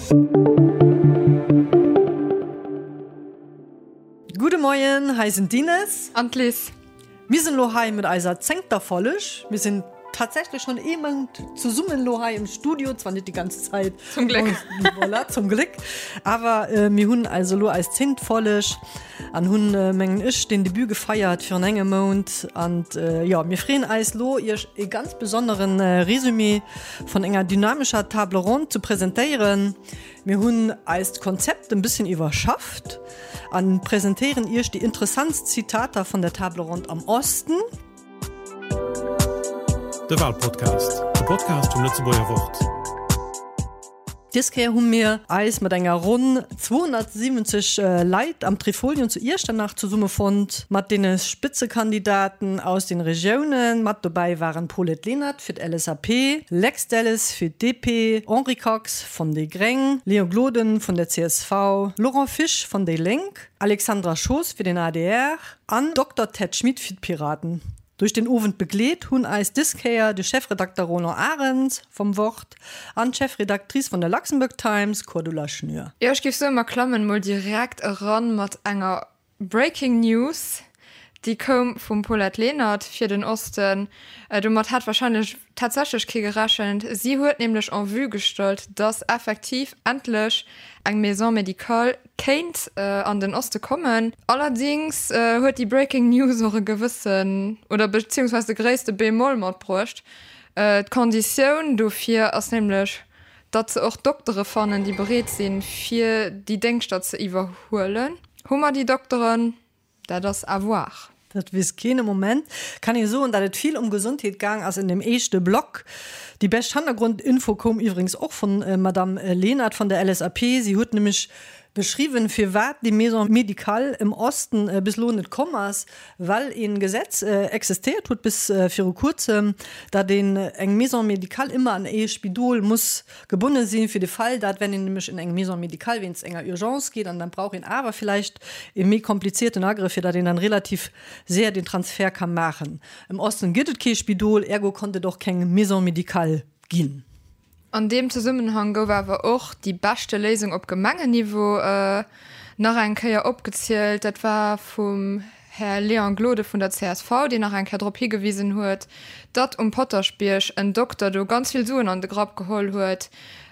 Gudde Moien, hei sinn d'Ines. An d'Liz. Mir sinn elo hei mat eiser zéngter Folleg. Mir sinn tatsächlech schonn ee Mount zesummen elo hei im Studio, zwar net déi ganz Zäit. Zum Gléck. Voilà, zum Gléck. Awer mir hunn also elo eis zéngt Folleg an hunn, mengen ech, den Debut gefeiert virun engem Mount. An jo, mir freeën eis elo, iech e ganz besonneren Résumé vun enger dynamescher Table ronde ze presentéieren. Mir hunn eist Konzept en bësschen iwwerschafft an presentéieren iech déi interessantst Zitater vun der Table ronde am Osten. De Walpodcast, de Podcast vum Lëtzebuerger Wort. Dës Kéier hu mir eis mat enger ronn 270 Leit am Trifolion zu Iechternach zesummefonnt, mat deene Spëtzekandidaten aus den Regiounen. Mat dobäi waren Paulette Lenert fir d'LSAP, Lex Delles fir d'DP, Henri Kox von déi Gréng, Léon Gloden vun der csv, Laurent Fisch von déi Lénk, Alexandra Schoos fir den adr an Dokter Ted Schmit fir d'Piraten. Duerch den Owend begleet hunn eis dës Kéier de Chefredakter Roland Arens vom Wort an d'Chefredactrice von der Luxembourg Times Cordula Schnür. Jo, ech géif soen, mer klammen mol direkt eran mat enger Breaking News, déi koum vum Paulette Lenert fir den Osten. Domat hat warscheinlech tatsächlech kee gerechent. Si huet nämlech en vue gestallt, datt effektiv endlech eng Maison médicale kéint an den Oste kommen. Allerdings huet déi Breaking News och e gewëssen, oder beziehungsweise de gréisste Bémol matbruecht. D'Konditioun dofir ass nämlech, datt se och Doktere fannen, déi bereet sinn, fir déi Déngschter ze iwwerhuelen. Hu mer déi Dokteren? Dat ass à voir. Dat weess keen. Am Moment kann ee soen, datt et vill ëm Gesondheet gaang ass in dem éischte Block. Déi bescht Hannergrondinfo koum iwwregens och vun Madamm Lenert vun der LSAP. Si huet nämlech beschriwwen, firwat déi Maison médicale im Osten bis elo net komm ass, Well een Gesetz existéiert huet bis viru kuerzem, dat een eng Maison médicale ëmmer an ee Spidol muss gebonne sinn, fir de Fall, dat wenn een nämlech in eng Maison médicale wéinst enger Urgence geet an dann brauch een awer villäicht ee méi komplizierten Agrëff, fir dat een dann relativ séier den Transfert ka maachen. Im Osten gëtt et kee Spidol, ergo konnt et och keng Maison médicale ginn. An deem Zesummenhang gouf awer och déi beschte Léisung op Gemengenniveau nach eng Kéier opgezielt. Dat war vum Här Léon Gloden vun der csv, deen nach eng Kéier drop higewisen huet, datt um Potaschbierg en Dokter do ganz vill Suen an de Grapp geholl huet,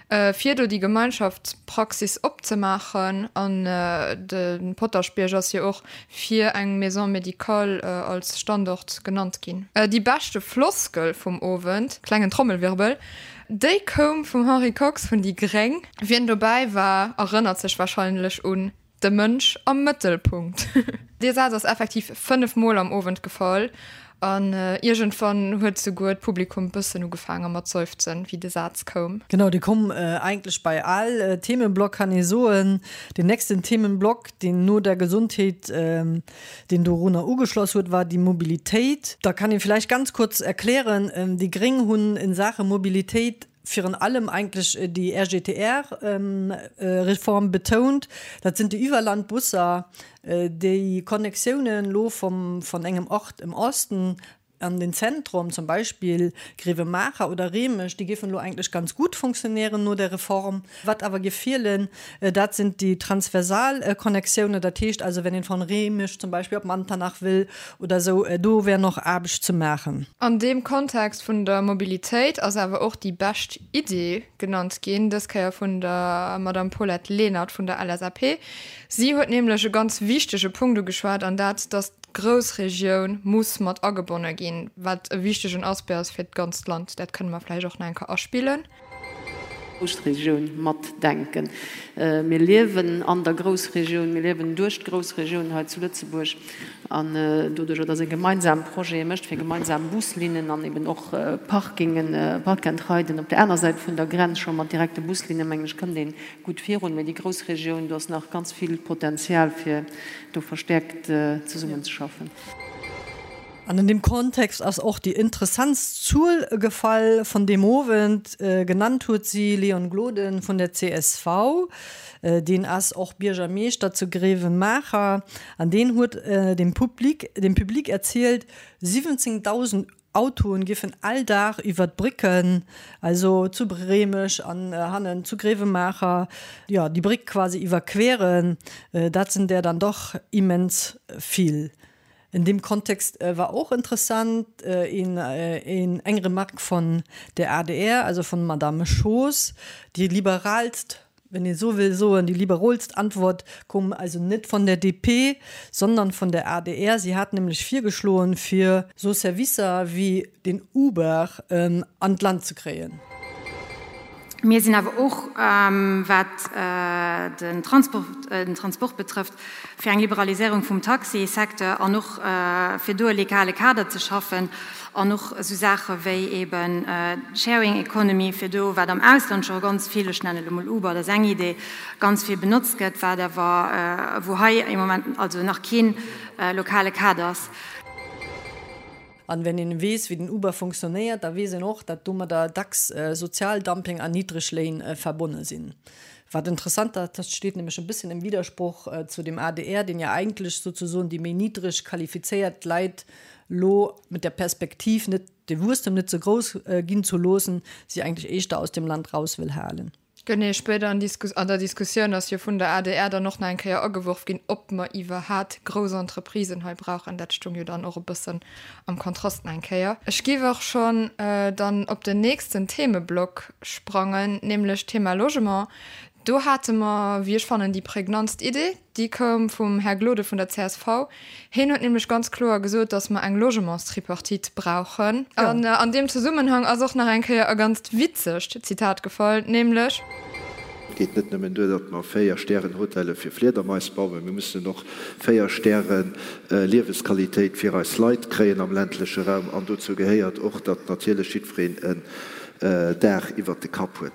fir do déi Gemeinschaftspraxis opzemaachen. An de Potaschbierg ass jo och fir eng Maison médicale als Standort genannt ginn. Déi beschte Floskel vum Owend, klengen Trommelwirbel, déi koum vum Henri Kox vun déi gréng. Wien dobäi war, erënnert sech warscheinlech un De Mënsch am Mëttelpunkt. Dee Saz ass effektiv 5 Mol am Owend gefall an iergendwann huet souguer d'Publikum bëssen ugefaange mat seufzen, wéi de Saz koum. Genau, dee koum eigentlech bei all Themenblock, kann ee soen. Den nächsten Themenblock, deen no der Gesundheet, deen dorunner ugeschloss huet, war déi Mobilitéit. Da kann ee vläicht ganz kurz erklären, déi Gréng hunn in Saache Mobilitéit virun allem eigentlech déi RGTR-Reform betount. Dat sinn déi Iwwerlandbusser, déi Connectiounen elo vum, vun engem Ort im Osten an den Zentrum, zum Beispill Grevenmacher oder Remich, déi géifen elo eigentlech ganz gut funktionieren no der Reform. Wat awer géif feelen, dat sind déi transversal Connectiounen, dat heescht also, wenn een von Remich zum Beispill op Manternach wëll oder esou, do wär noch Aarbecht ze maachen. An deem Kontext vun der Mobilitéit ass awer och déi bescht Idee genannt ginn, dës Kéier vun der Madame Paulette Lenert vun der LSAP. Si huet nämlech e ganz wichtege Punkt ugeschwat, an dat, dass d'Groussregioun muss mat agebonne ginn, wat e wichtegen Aspect ass fir d'ganzt Land. Dat kënne mer vläicht och nach eng Kéier aspillen. Groussregioun matdenken. Mir liewen an der Groussregioun, mir liewen duerch d'Groussregioun hei zu Lëtzebuerg. An doduerjer, dass ee gemeinsam Projete mécht fir gemeinsam Buslinnen an eben och Parkingen, Park-and-Riden op der aner Säit vun der Grenz scho mat direkte Buslinnen, mengen ech, kënnt ee gutt virun. Mee déi Groussregioun, do ass nach ganz vill Potenzial, fir do verstäerkt zesummenzeschaffen. An an deem Kontext ass och déi interessantst Zuel gefall vun deem Owend. Genannt huet si Leon Gloden vun der csv. Deen ass och Biergermeeschter zu Grevenmacher an deen huet dem Public dem Public erzielt, 17.000. Autoen giffen all Dag iwwer d'Brécken, also zu Réimech an hannen zu Gréiwemaacher, jo, déi Bréck quasi iwwerqueren. Dat sinn der dann doch immens vill. In dem Kontext war och interessant een eng Remarque von der adr, also von Madame Schoos, déi liberalst, wenn ee sou wëll soen, déi liberolst Antwort koum also net von der DP, sondern von der adr. Si hat nämlech virgeschloen, fir sou Servicer wéi den Uber an d'Land ze kréien. Mir sinn awer och, wat den Transport betrëfft, fir eng Liberaliséierung vum Taxisecteur an och fir do e legale Kader ze schaffen an och esou Saache wéi eeben d'Sharing Economy, fir do, wat am Ausland scho ganz vill, ech nennen elo mol Uber, dat ass eng Idee, ganz vill benotzt gëtt, wat awer, wou hei am Moment also nach kee lokale Kader ass. An wenn een weess, wéi den Uber funktionéiert, da weess een och, datt domadder dacks Sozialdumping an niddreg Léin verbonne sinn. Wat interessant ass, dat steet nämlech e bësschen im Widersproch zu dem adr, deen ja eigentlech souzesoen déi méi niddreg qualifizéiert Leit lo mit der Perspektiv, net de Wuesstem net ze grouss ginn ze loossen, si eigentlech éischter aus dem Land raus wëll halen. Genee, spéider an der Diskussioun ass jo vun der adr dann och nach eng Kéier ageworf ginn, ob mer iwwerhat grouss Entreprisen hei brauchen. Dat stung jo dann och e bëssen am Kontrast nach eng Kéier. Ech géif och schonn dann op den nächsten Themeblock sprangen, nämlech d'Thema Logement. Do hate mer, wéi ech fannen, déi prägnantst Idee. Déi koum vum Här Gloden vun der csv. Hien huet nämlech ganz kloer gesot, datt mer eng Logementstripartite brauchen. An an deem Zesummenhang ass och nach eng Kéier e ganzt witzegt Zitat gefall, nämlech. Et geet net nëmmen duer, datt mer Véier-Stären-Hotelle fir Fliedermais bauen, mir mussen och Véier-Stäre-Liewesqualitéit fir eis Leit kréien am ländleche Raum. An dozou gehéiert och, datt natierlech jiddwereen en Daach iwwert de Kapp huet.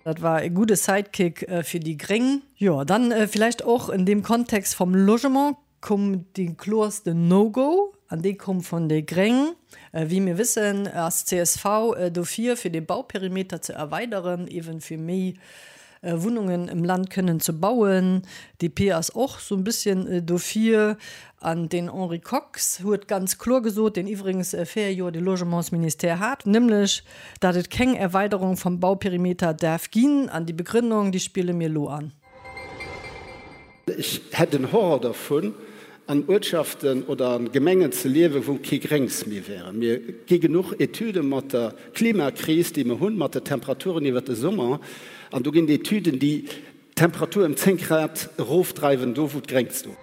Dat war e gudde Sidekick fir déi Gréng. Jo, dann villäicht och en deem Kontext vom Logement koum dee kloerste No-Go, an dee koum vun déi Gréng. Wéi mir wëssen, ass csv dofir, fir de Bauperimeter ze erweideren, eeben fir méi Wunnungen im Land kënnen ze bauen. DP ass och sou e bësschen dofir. An den Henri Kox huet ganz kloer gesot, deen iwwregens 4 Joer de Logementsministère hat, nämlech datt et keng Erweiderung vum Bauperimeter däerf ginn. An déi Begrënnung, déi spille mir elo an. Ech hätt en Horror dervun, an Uertschaften oder an Gemengen ze liewen, wou kee Gréngs méi wäre. Mir gi genuch Etüde mat der Klimakris, déi mer hunn, mat de Temperaturen iwwert de Summer, an do ginn et Etüden, déi d'Temperatur ëm 10 Grad erofdreiwen, do wou d'Gréngs do.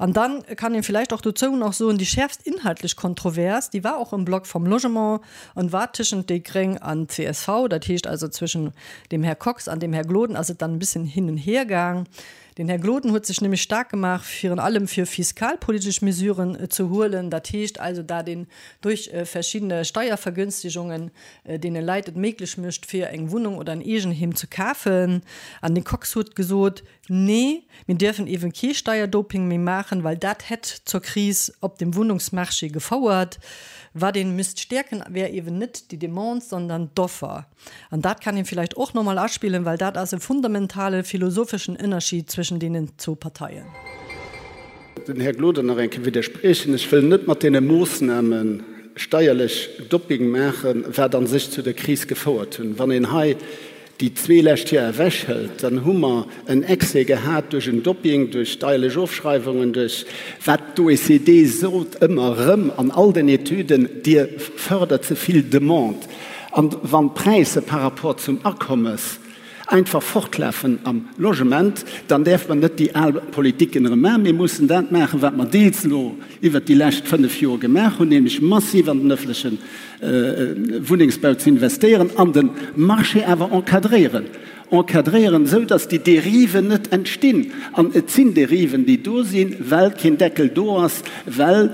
An dann kann een vielleicht och dozou nach soen, déi schäerfst inhaltlech Kontrovers, déi war och im Block vom Logement an war tëschent déi Gréng an csv, dat heescht also zwëschen dem Här Kox an dem Här Gloden ass et dann e bisschen hin und her gaang. Den Här Gloden huet sech nämlech staark gemaach, virun allem fir fiskalpolitesch Mesuren ze huelen, dat heescht also dat een durch verschiddene Steiervergünstigungen deene Leit et méiglech mécht, fir eng Wunnung oder en Eegenheem ze kafen. An de Kox huet gesot, Nee, mir dierfen eeben kee Steierdoping méi maachen, well dat hätt zur Kris op dem Wunnungsmarché gefouert. Wat een misst stäerken, wär eeben net déi Demande, sondern d'Offer. An dat kann een vielleicht och nochmol aspillen, well dat ass e fundamentale philosopheschen Ënnerschied zwëschen deenen zwou Parteien. Den Här Gloden nach eng Kéier widderspriechen. Ech wëll net mat deene Moossname steierlech Dopping maachen, wat a sech zu der Kris gefouert hunn. Wann een hei déi zwee lescht Joer ewechhëlt, dann hu mer en Excès gehat duerch en Dopping, duerch steierlech Ofschreiwungen, duerch wat d'OECD sot ëmmer erëm an all den Etüden, Dir fërdert ze vill Demande. An wann d'Präisser par rapport zum Akommes einfach fortlafen am Logement, dann däerf mer net déi al Politiken erëm maachen. Mir mussen dat maachen, wat mer deels elo iwwert déi lescht fënnf Joer gemaach hunn, nämlech massiv an den öffentleche Wunnengsbau ze investéieren an de Marché awer encadréieren. Encadréieren, esou datt déi Dériven net entstinn. An et sinn Dériven, déi do sinn, well keen Deckel do ass, well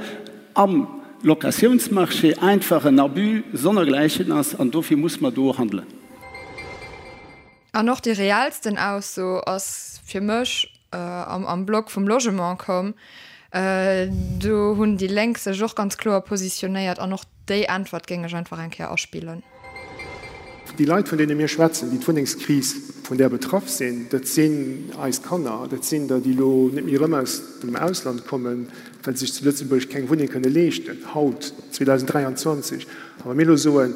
am Locatiounsmarché einfach en Abus sonnergläichen ass. An dofir muss mer do handelen. An och déi reellsten Ausso ass fir mech am Block vum Logement komm. Do hunn déi Lénk sech och ganz kloer positionéiert an och déi Äntwert géing ech einfach eng Kéier aspillen. Déi Leit, vun deene mir schwätzen, déi d'Wunnengskris. vun där betraff sinn, dat sinn eis Kanner, dat sinn der, déi elo net méi erëm aus dem Ausland kommen, well se sech zu Lëtzebuerg keng Wunneng kënne leeschten, haut, 2023. A wa mir elo soen,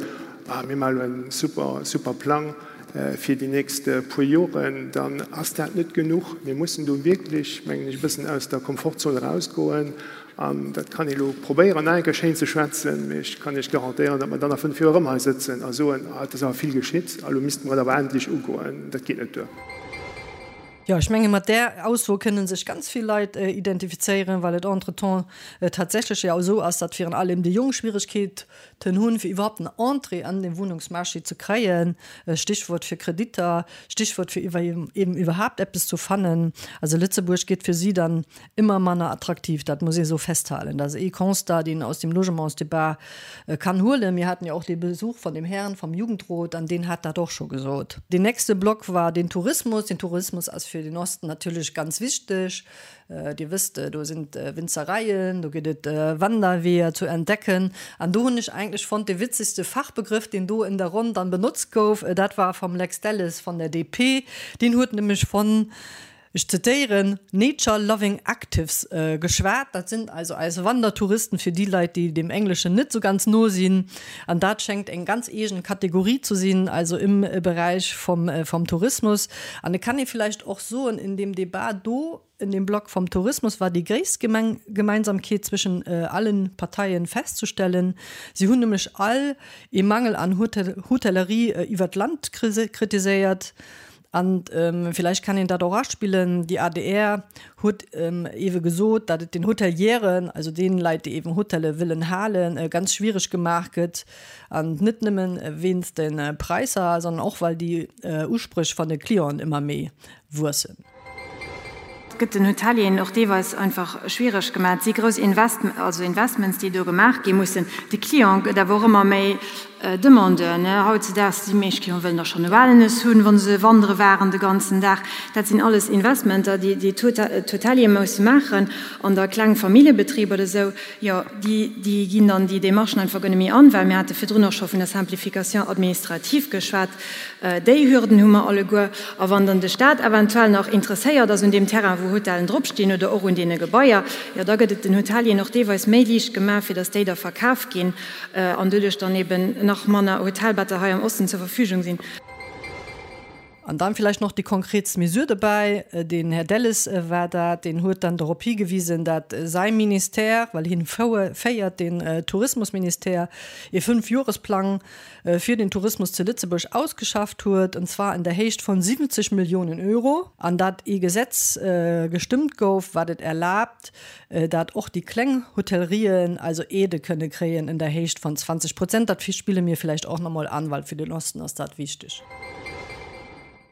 Ah, mir maache elo en super, super Plang fir déi nächst puer Joren, dann ass dat net genuch. Mir mussen do wierklech, mengen ech, e bëssen aus der Komfortzon erausgoen. An dat kann ee elo probéieren, nach eng Kéier schéin ze schwätzen, mee ech kann Iech garantéieren, datt mer dann a fënnf Joer erëm hei sëtzen a soen, Ah, et ass awer vill geschitt a elo misste mer et awer endlech ugoen. Dat geet net duer. Jo, ech menge mat där Ausso kënne sech ganz vill Leit identifizéieren, well et entretemps tatsächlech jo esou ass, datt virun allem déi Jonk Schwieregkeeten hunn, fir iwwerhaupt en Entrée an de Wunnungsmarché ze kréien, Stichwort fir Kreditter, Stichwort fir iwwer eben iwwerhaapt eppes zu fannen. Also Lëtzebuerg gétt fir si dann ëmmer manner attraktiv, dat muss ee sou festhalen. Dat ass ee Constat, deen aus dem Logementsdebat kann huelen. Mir haten jo och dee Besuch von dem Herrn vom Jugendrot an deen hat dat och scho gesot. Deen nächste Block war den Tourismus. Den Tourismus ass fir den Osten natierlech ganz wichteg. Dir wësst, do sinn d'Winzereien, do gëtt et Wanderweeër zu entdecken. An do hunn ech eigentlech fonnt, dee witzegste Fachbegrëff, deen do in der Ronn dann benotzt gouf, dat war vom Lex Delles von der DP. Deen huet nämlech von ech zitéieren, nature loving actives geschwat. Dat sinn also eis Wandertouristen, fir déi Leit, déi dem Engleschen net sou ganz no sinn. An dat schéngt eng ganz eegen Kategorie zu sinn, also im Beräich vom, vom Tourismus. An et kann ee villäicht och soen, in dem Debat do, in dem Block vom Tourismus war déi gréisst Gemeng, Gemeinsamkeet zwischen allen Parteien festzustellen. Si hunn nämlech all ee Mangel an Hotellerie iwwert d'Land kritiséiert. An villäicht kann een dat och aspillen, déi adr huet ewe gesot, datt et den Hotelieren, also deenen Leit, déi eeben Hotelle wëllen halen, ganz schwiereg gemaach gëtt. An net nëmmen wéinst de Präisser, sondern och well déi Uspréch van de Clienten ëmmer méi wuessen. Et gëtt den Hotelieren och deelweis einfach schwiereg gemaach. Et si grouss Invest, also Investments, déi do gemaach gi mussen. De Client gëtt awer och ëmmer méi Demandeur, ne. Hautzedaags, déi meescht Clienten wëllen da schonn e Wellness hunn, wa se wandere waren de ganzen Dag. Dat sinn alles Investmenter, déi déi d'Hoteliere musse maachen. An da kleng Familljebetriber oder esou, jo, déi, déi ginn dann déi Démarchen einfach guer net méi an, well mir hate virdrun och scho vun der Simplification administrative geschwat. Déi Hürden hu mer alleguer. A wann dann de Stat eventuell nach interesséiert ass un deem Terrain, wou Hotellen dropstinn, oder och un deene Gebaier, jo da gëtt et den Hotelieren och deelweis méi liicht gemaach, fir datt déi da verkaf ginn an doduerch dann eben nach manner Hotelbetter hei am Osten zur Verfügung sinn. An dann vielleicht noch déi konkretst Mesure dobäi, den Här Delles war dat, deen huet dann dorop higewisen, dat säi Ministère, well hien féiert den Tourismusministère, ee Fünfjohresplang fir den Tourismus zu Lëtzebuerg ausgeschafft huet, und zwar in der Héicht von 70 Millionen Euro, an dat ee Gesetz gestëmmt gouf, wat et erlaabt, dat och déi kleng Hotellerien also Aidë kënne kréien in der Héicht von 20 Prozent. Dat spille mir vielleicht och nach mol an, well fir den Osten ass dat wichteg.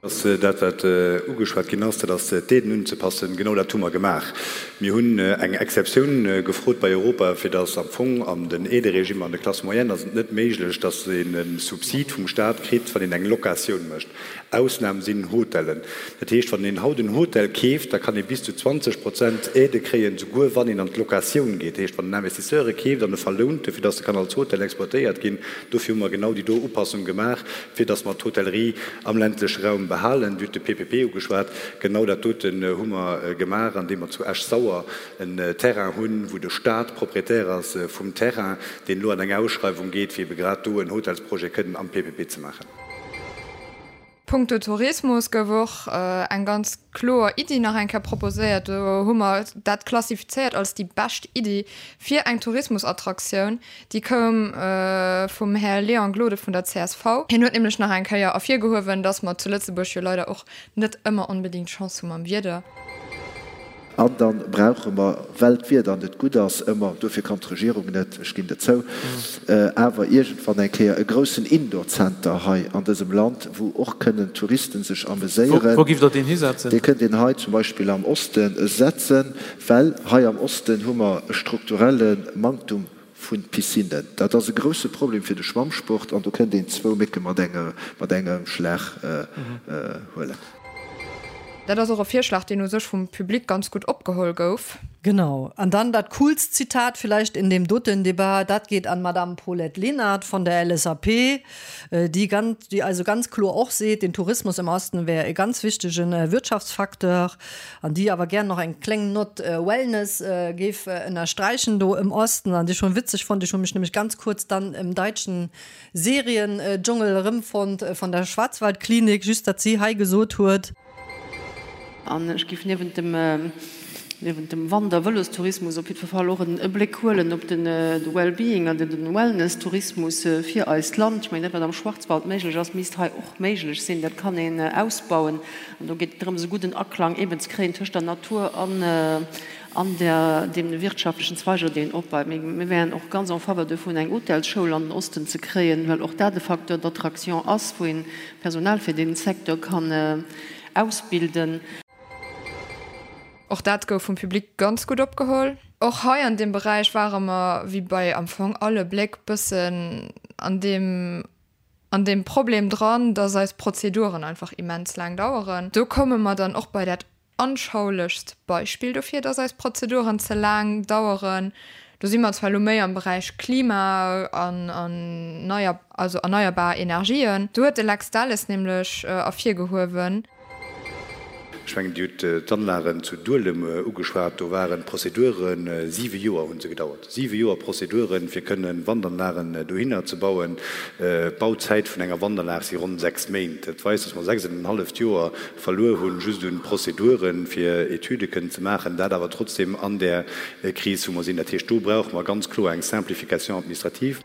Ass dat, wat ugeschwat ginn ass, dat ass d'Aiden unzepassen. Genau dat hu mer gemaach. Mir hunn eng Exceptioun gefrot bei Europa, fir datt am Fong an den Aideregimer an de Classes moyennes ass et net méiglech, datt een e Subsid vum Stat kritt, wann een eng Locatioun mécht. Ausnam sinn Hotellen. Dat heescht, wann een haut en Hotel keeft, da kann ee bis zu 20 Prozent Aide kréien, souguer wann een an d'Locatioun geet. Dat heescht, wann en Investisseur e keeft an e verlount e, fir datt e kann als Hotel exploitéiert ginn. Dofir hu mer genau déi do Upassung gemaach, fir datt mer d'Hotellerie am ländleche Raum behalen. Dir hutt de PPP ugeschwat. Genau dat doten hu mer gemaach, andeem mer zu Esch-Sauer en Terrain hunn, wou de Stat Propriétaire ass vum Terrain, deen elo an eng Ausschreiwung geet, fir ebe grad do en Hotelsprojet kënnen am PPP ze maachen. Punkto Tourismus gouf och eng ganz kloer Iddi nach eng Kéier proposéiert. Do hu mer dat klassifizéiert als déi bescht Iddi fir eng Tourismusattraktioun. Déi koum vum Här Léon Gloden vun der csv. Hien huet nämlech nach eng Kéier ervirgehuewen, dass mer zu Lëtzebuerg jo leider och net ëmmer onbedéngt Chance hu mam Wieder. An da brauche mer, well d'Wieder net gutt ass ëmmer, dofir kann d'Regierung net, ech ginn dat zou, awer iergendwann eng Kéier e groussen Indoor-Center hei an dësem Land, wou och kënnen Touristen sech ameséieren. Wou giff Der deen hisetzen? Dee kënnt een hei zum Beispill am Oste setzen, well hei am Osten hu mer e strukturelle Manktum vu Piscinnen. Dat ass e grousse Problem fir de Schwammsport an do kënnt een zwou Mécke mat engem Schlag huelen. Dat ass och e Virschlag, deen u sech vum Public ganz gutt opgeholl gouf. Genau. An dann dat coolst Zitat vielleicht in deem doten Debat, dat geet an d'Madame Paulette Lenert von der LSAP, déi ganz, déi also ganz kloer och seet, den Tourismus im Osten wär e ganz wichtegen Wirtschaftsfacteur, an déi awer gär nach eng kléng Nott Wellness géif ënnersträichen do im Osten, an déi ech schon witzeg fonnt. Ech hu mech nämlech ganz kurz dann im deutschen Serien-Dschungel erëmfonnt von der Schwarzwaldklinik, just datt si hei gesot huet. An ech géif niewent dem, niewent dem Wander Vëlostourismus op jiddwer Fall och en Bléck huelen op den Well-being an den Wellness-Tourismus fir eist Land. Ech mengen, dat wat am Schwarzwald méiglech ass, misst hei och méiglech sinn. Dat kann een ausbauen. An do geet et drëms, e gudden Aklang eeben ze kréien tëscht der Natur an, an der, deem wirtschaftlechen Zweiger, deen opbaut. Mir wären och ganz en faveur dovun, eng Hotelsschoul an den Osten ze kréien, well och dat e Facteur d'attraction ass, wou een Personal fir dee Secteur kann ausbilden. Och dat gouf vum Public ganz gutt opgeholl. Och hei an deem Beräich ware mer, wéi bei am Fong alle Bléck, bëssen an deem, an deem Problem dran, dass eis Prozeduren einfach immens laang daueren. Do komme mer dann och bei dat Anschaulechst Beispill dofir, dass eis Prozeduren ze laang daueren, do si mer zwar elo méi am Beräich Klima an neier, also erneierbar Energien, do huet de Lex Delles nämlech ervirgehuewen, Ech mengen, Dir hutt d'Anlagen zu Duelem ugeschwat. Do waren d'Prozedure siwe Joer hu se gedauert, siwe Joer Prozeduren, fir kënnen Wandanlagen dohinner ze bauen. D'Bauzäit vun enger Wandanlag si ronn sechs Méint. Dat weist, dass mer sechs an en halleft Joer verluer hunn, just un Prozeduren, fir Etüde kënnen ze maachen, dat awer trotzdem an där Kris, wou mer sinn. Dat heescht, do brauche mer ganz kloer eng Simplification administrative.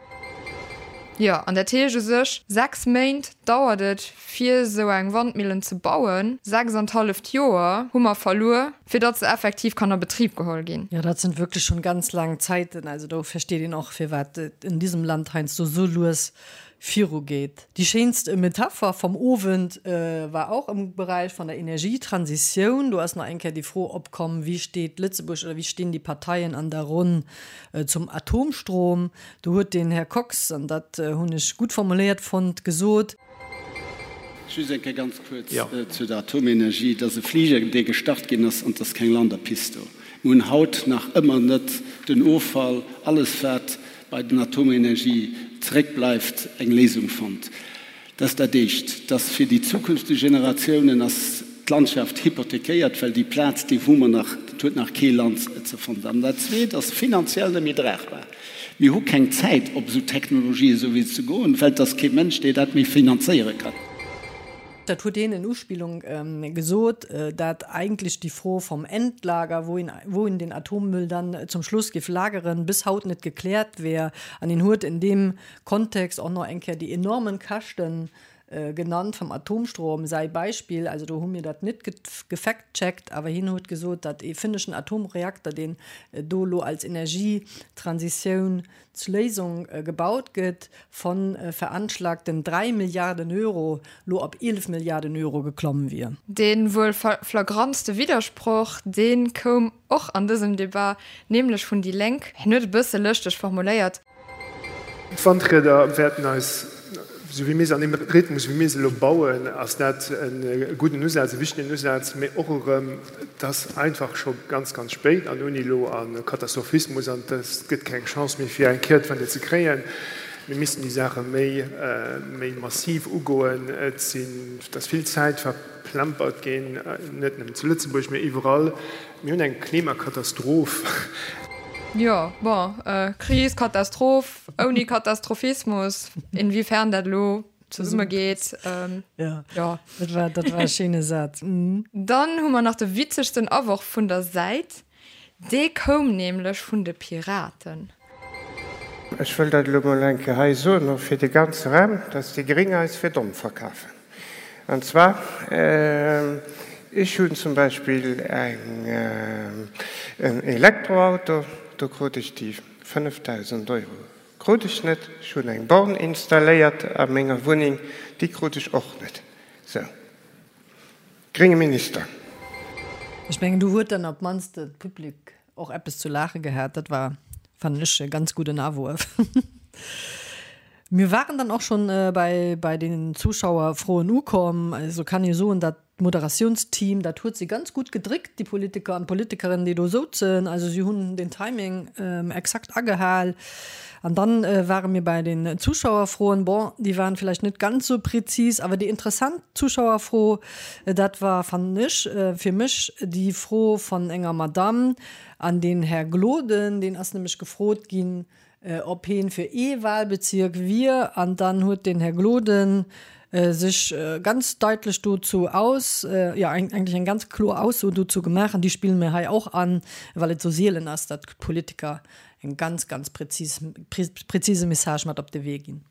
Jo, an dat heescht u sech, sechs Méint dauert et, fir esou eng Wandmillen ze bauen. Sechs an d'halleft Joer hu mer verluer, fir datt se effektiv kann a Betrib geholl ginn. Jo, dat sinn wierklech schonn ganz laang Zäiten. Also do versteet een och, firwat et in diesem Land heiansdo esou lues virugeet. Déi schéinst Metapher vum Owend war och am Beräich vun der Energietransitioun. Do ass nach eng Kéier déi Fro opkomm, Wéi steet Lëtzebuerg oder wéi stinn déi Parteien an der Ronn zum Atomstrom? Do huet den Här Kox, an dat hunn ech gutt formuléiert fonnt, gesot. Just eng Kéier ganz kuerz zu der Atomenergie. Et ass e Fliger, dee gestart ginn ass, an et ass keng Landerpist do. Mir hunn haut nach ëmmer net den Offall, alles wat bei den Atomenergie zeréckbleift, eng Léisung fonnt. Dat ass dat Éischt. Dass fir déi zukünfteg Generatiounen ass d'Landschaft hypothekéiert, well déi Plaz, déi hu mer nach, dat huet nach kee Land ze fonnt. An dat Zweet ass finanziell net méi dragbar. Mir hu keng Zäit, op esou Technologien esou ze goen, well et ass kee Mënsch, dee dat méi finanzéiere kann. Dat huet een in Uspillung gesot, dat eigentlech déi Fro vom Endlager, wou een, wou een den Atommüll dann zum Schluss géif lageren, bis haut net gekläert wär. An een huet in deem Kontext och nach eng Kéier déi enormen Käschten genannt vom Atomstrom. Säi Beispill, also do hu mir dat net gefact-checkt, awer hien huet gesot, datt ee finneschen Atomreakter, deen do elo als Energietransitioun Léisung gebaut gëtt, von veranschlagten 3 Milliarden Euro lo op 11 Milliarden Euro geklomm wier. Dee wuel flagrantste Widdersproch, dee koum och an dësem Debat, nämlech vun déi Lénk. Hien huet e bësse lëschteg formuléiert. D'Wandrieder wäerten eis, esou wéi mir se an deem Rhythmus, wéi mir se elo bauen, ass dat e gudden Usaz, e wichtegen Usaz, mee och erëm, et ass einfach scho ganz, ganz spéit an ouni elo a Katastrophismus an et gëtt keng Chance méi fir eng Kehrtwende ze kréien. Mir missten déi Saache méi, méi massiv ugoen. Et sinn, et ass vill Zäit verplempert ginn, net nëmmen zu Lëtzebuerg, mee iwwerall. Mir hunn eng Klimakatastroph. Jo, bon, Kris, Katastroph, ouni Katastrophismus, inwiefern dat elo zesumme geet. Jo, jo. Dat war, dat war e schéine Saz. Dann hu mer nach de witzegsten Aworf vun der Säit. Dee koum nämlech vun de Piraten. Ech wëll dat elo mol eng Kéier hei soen, och fir de ganze Raum, dass déi Gréng eis fir domm verkafen. An zwar, ech hunn zum Beispill eng, en Elektroauto, do krut ech déi 5.000 Euro krut ech net. Ech hunn eng Born installéiert a menger Wunneng, déi krut ech och net. Sou. Grénge Minister. Ech mengen, do huet dann op d'mannst de Public och eppes zu laache gehat. Dat war, fannen ech, e ganz gudden Awuerf. Mir waren dann och schonn bei bei den Zuschauerfroen ukomm. Also kann ee soen, datt. D'Moderatiounsteam, dat huet si ganz gutt gedréckt, déi Politiker an d'Politikerinnen, déi do souzen. Also si hunn den Timing exakt agehal. An dann ware mir bei den Zuschauerfroen. Bon, déi waren vläicht net ganz sou präzis, awer déi interessant Zuschauerfro, dat war, fannen ech, fir mech déi Fro von enger Madame an den Här Gloden, deen ass nämlech gefrot ginn, ob heen fir ee Wahlbezirk wier, an dann huet den Här Gloden sech ganz deitlech dozou aus, jo eigentlech eng ganz kloer Ausso dozou gemaach, an déi spille mir hei och an, well et sou sielen ass, datt d'Politiker eng ganz, ganz präzis, präzise Message mat op de Wee ginn.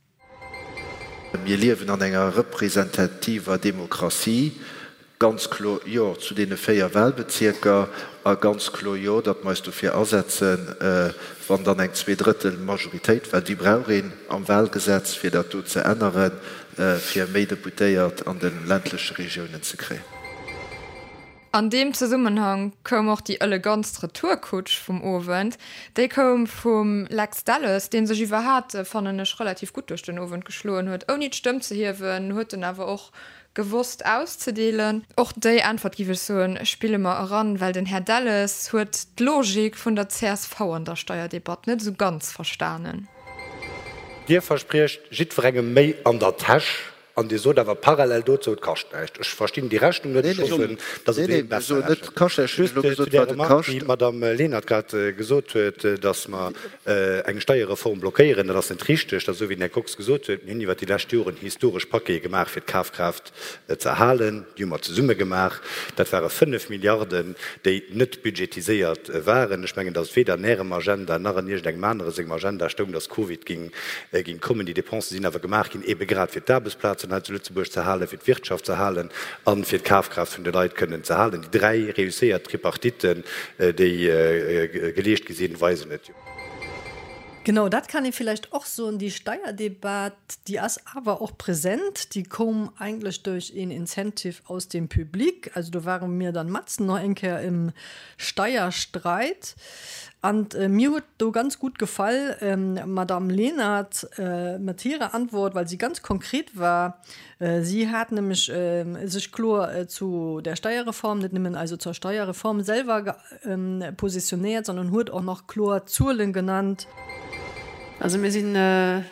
Mir liewen an enger representativer Demokratie. Ganz kloer Jo zu deene 4 Wahlbezierker a ganz kloer Jo, datt mer eis dofir asetzen, wann dann eng Zweedrëttel-Majoritéit, well déi brauch een am Wahlgesetz, fir dat do ze änneren, fir méi Deputéiert an de ländleche Regiounen ze kréien. An deem Zesummenhang koum och déi elegantst Retourkutsch vum Owend. Déi koum vum Lex Delles, dee sech iwwerhat, fannen ech, relativ gutt duerch den Owend geschloen huet. Ouni d'Stëmm ze hiewen, huet en awer och gewosst auszedeelen. Och déi Äntwert, giff ech soen, spille mer eran, well den Här Delles huet d'Logik vun der csv an der Steierdebatt net esou ganz verstanen. Dir verspriecht jiddwerengem méi an der Täsch An Dir sot awer parallel dozou, et kascht näischt. Ech verstinn déi Rechnung net. Ech hoffen, datt et een besser rechent. Just zu där Remark, déi d'Madame Lenert grad gesot huet, datt mer eng Steierreform blockéieren, dat ass net richteg. Dat ass esou, wéi den Här Kox gesot huet, Mir hunn iwwert déi lescht Joren historesch Paquete gemaach, fir d'Kafkraaft ze erhalen. Déi hu mer zesumme gemaach. Dat ware 5 Milliarden, déi net budgetiséiert waren. Ech mengen, datt et weder an Ärem Agenda nach an iergendengem anere sengem Agenda stoung, datt Covid géing Ginn kommen. Déi Dépensen sinn awer gemaach ginn, eebe grad fir d'Aarbechtsplazen hei zu Lëtzebuerg ze halen, fir d'Wirtschaft ze halen a fir d'Kafkraaft vun de Leit kënnen ze halen. Déi dräi reusséiert Tripartiten, déi geleescht gi sinn, weisen et jo. Genau, dat kann ee villäicht och soen, déi Steierdebat, déi ass awer och present. Déi koum eigentlech duerch een Incentive aus dem Public. Also do ware mir dann matzen nach eng Kéier im Steierstreit. An mir huet do ganz gutt gefall d'Madame Lenert mat hirer Antwort, well si ganz konkret war. Si hat nämlech sech kloer zu der Steierreform, net nëmmen also zur Steierreform selwer positionéiert, sondern huet och nach kloer Zuelen genannt. Also mir si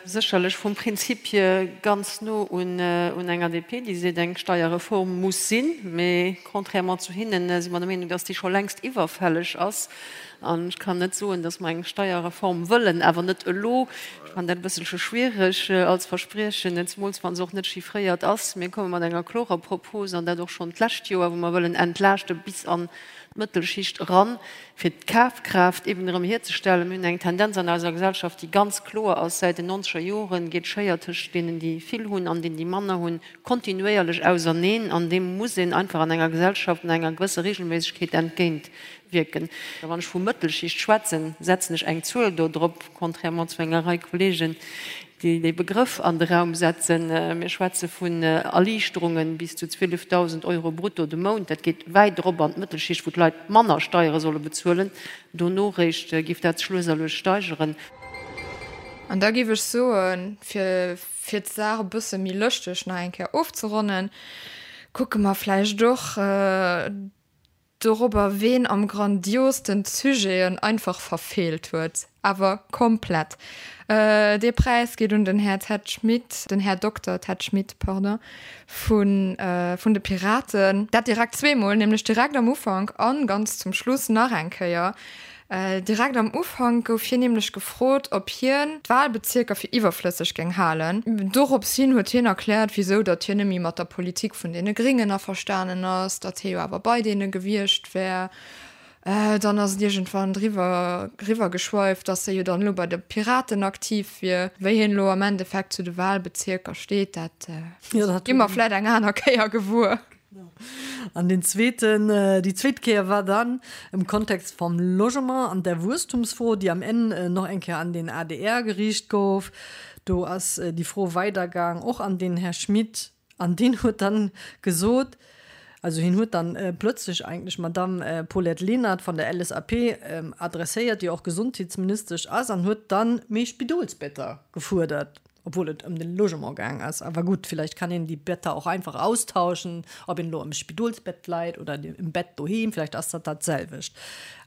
sécherlech vum Prinzip hier ganz no un enger DP, déi seet, eng Steierreform muss sinn. Mee contrairement zu hinnen si mer der Meenung, dass déi scho längst iwwerfälleg ass. An ech kann net soen, dass mer eng Steierreform wëllen, awer net elo. Ech fannen dat e bësselche schwierig als Verspriechen, zemools wa se och net chiffréiert ass. Mir komme mat enger klorer Propos, an dat och schonn d'lescht Joer, wou mer wëllen entlaaschte bis an d'Mëttelschicht eran, fir d'Kafkraaft eben erëm hierzestellen. Mir hunn eng Tendenz an eiser Gesellschaft, déi ganz kloer ass, Säit den nonzeger Jore geet d'Schéier tëscht deenen, déi vill hunn, an deenen, déi manner hunn, kontinuéierlech auserneen. An deem muss een einfach an enger Gesellschaft an enger gewësser Regelméissegkeet entgéint wierken. Wann ech vu Mëttelschicht schwätzen, setzen ech eng Zuel do drop, contrairement zu enger Rei Kollegen, déi dee Begrëff an de Raum setzen. Mir schwätze vun Erliichterunge bis zu 12.000 Euro brutto de Mount. Dat geet wäit erop an d'Mëttelschicht, wou d'Leit manner Steiere solle bezuelen. Dono réischt géif dat sech lues a lues steigeren. An da géif ech soen, fir fir d'Saach e bësse méi lëschteg nach eng Kéier ofzeronnen, kucke mer vläicht och, Dorobber ween am grandiosten d'Sujeten einfach verfeelt huet, awer komplett. Dee Präis geet un den Här Ted Schmit, den Här Dokter Ted Schmit, pardon, vun vun de Piraten. Dat direkt zweemol, nämlech direkt am Ufank an ganz zum Schluss nach eng Kéier. Direkt am Ufank gouf hien nämlech gefrot, ob hien d'Wahlbezierker fir iwwerflësseg géing halen. Dorops hin huet hien erkläert, wisou datt hien net méi mat der Politik vun deene Gréngen averstanen ass, datt hie jo awer bei deene gewiescht wär. Dann ass et iergendwann driwwer riwwer geschweift, datt hie jo dann elo bei de Piraten aktiv wier. Wéi hien elo am Endeffekt zu de Wahlbezierker steet, dat gi mer vläit eng aner Kéier gewuer. An den zweeten, déi zweet Kéier war dann im Kontext vom Logement an der Wuesstumsfro, déi am Enn nach eng Kéier an den adr geriicht gouf. Do ass déi Fro weidergaang, och an den Här Schmit. An deen huet dann gesot, also hien huet dann plötzlech eigentlech d'Madamm Paulette Lenert von der LSAP adresséiert, déi och Gesondheetsministesch ass, an huet dann méi Spidolsbetter gefuerdert. Obwuel et ëm den Logement gaang ass. Awer gutt, villäicht kann een déi Better och einfach austauschen, ob een elo am Spidolsbett leit oder im Bett doheem, villäicht ass dat dat selwecht.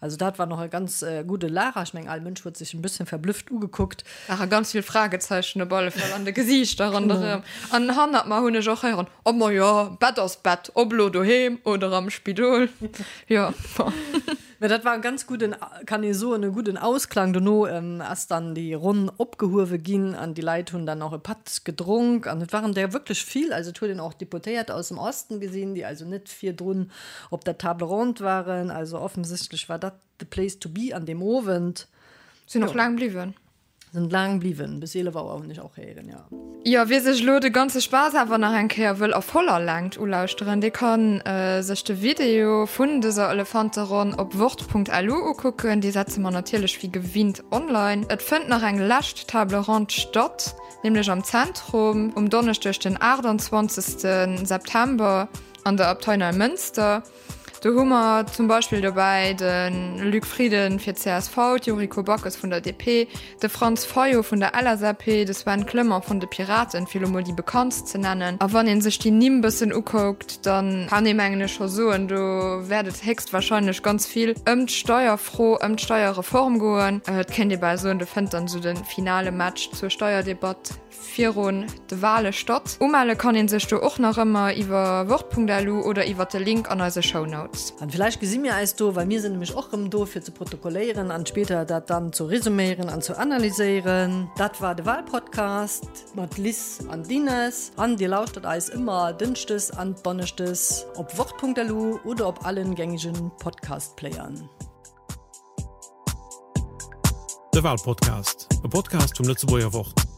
Also dat war nach e ganz gudde Lacher. Ech mengen, all Mënsch huet sech en bësschen verblüfft ugekuckt. Ware ganz vill Fragezeichen op alle Fall an de Gesiichter ronderëm. An hannert mer hunn ech och héieren, Oh ma jo, Bett ass Bett, ob elo doheem oder am Spidol. Jo, bon. Mä dat war e ganz gudden, kann ee soen, e gudden Ausklang. Dono ass dann déi Ronn opgehuewe ginn an déi Leit hunn dann och e Patt gedronk an et waren der wierklech vill. Also et huet een och Deputéiert aus dem Osten gesinn, déi also net virdrun op der Table ronde waren. Also offensichtlech war dat the place to be an deem Owend. Sinn och laang bliwwen. Sinn laang bliwwen, bis 11 Auer hunn ech och héieren, jo. Jo, wie sech elo de ganze Spaass awer nach eng Kéier wëll a voller Längt ulauschteren, dee kann sech de Video vun dëser Elefanteronn op wort.lu ukucken. Dee setze mer natierlech wéi gewinnt online. Et fënnt nach eng lescht Table Ronde statt, nämlech am Zentrum um Donneschdeg den 28 September an der Abtei Neimënster. Do hu mer zum Beispill dobäi de Luc Frieden fir d'CSV, d'Yuriko Backes vun der DP, de Franz Fayot vun der LSAP, de Sven Clement vun de Piraten, fir elo mol déi bekanntst ze nennen. A wann ee sech déi Nimm bëssen ukuckt, da kann ee mengen ech scho soen, do wäert et héchstwahrscheinlech ganz vill ëm d'Steierfro, ëm d'Steierreform goen. Et kéint ee bal soen, do fënnt dann esou de finale Match zur Steierdebatt virun de Wale statt. Umelle kann een sech do och nach ëmmer iwwer wort.lu oder iwwer de Link an eise Shownotes. An villäicht gesi mir eis do, well mir sinn nämlech och rëm do fir ze protokolléieren an spéider dat dann zu resuméieren an zu analyséieren. Dat war de Walpodcast mat Liz an Dines an dir lauschtert eis ëmmer dënschdes an donneschdes op wort.lu oder op allen gängegen Podcast-Playern. De Walpodcast, e Podcast vum Lëtzebuerger Wort.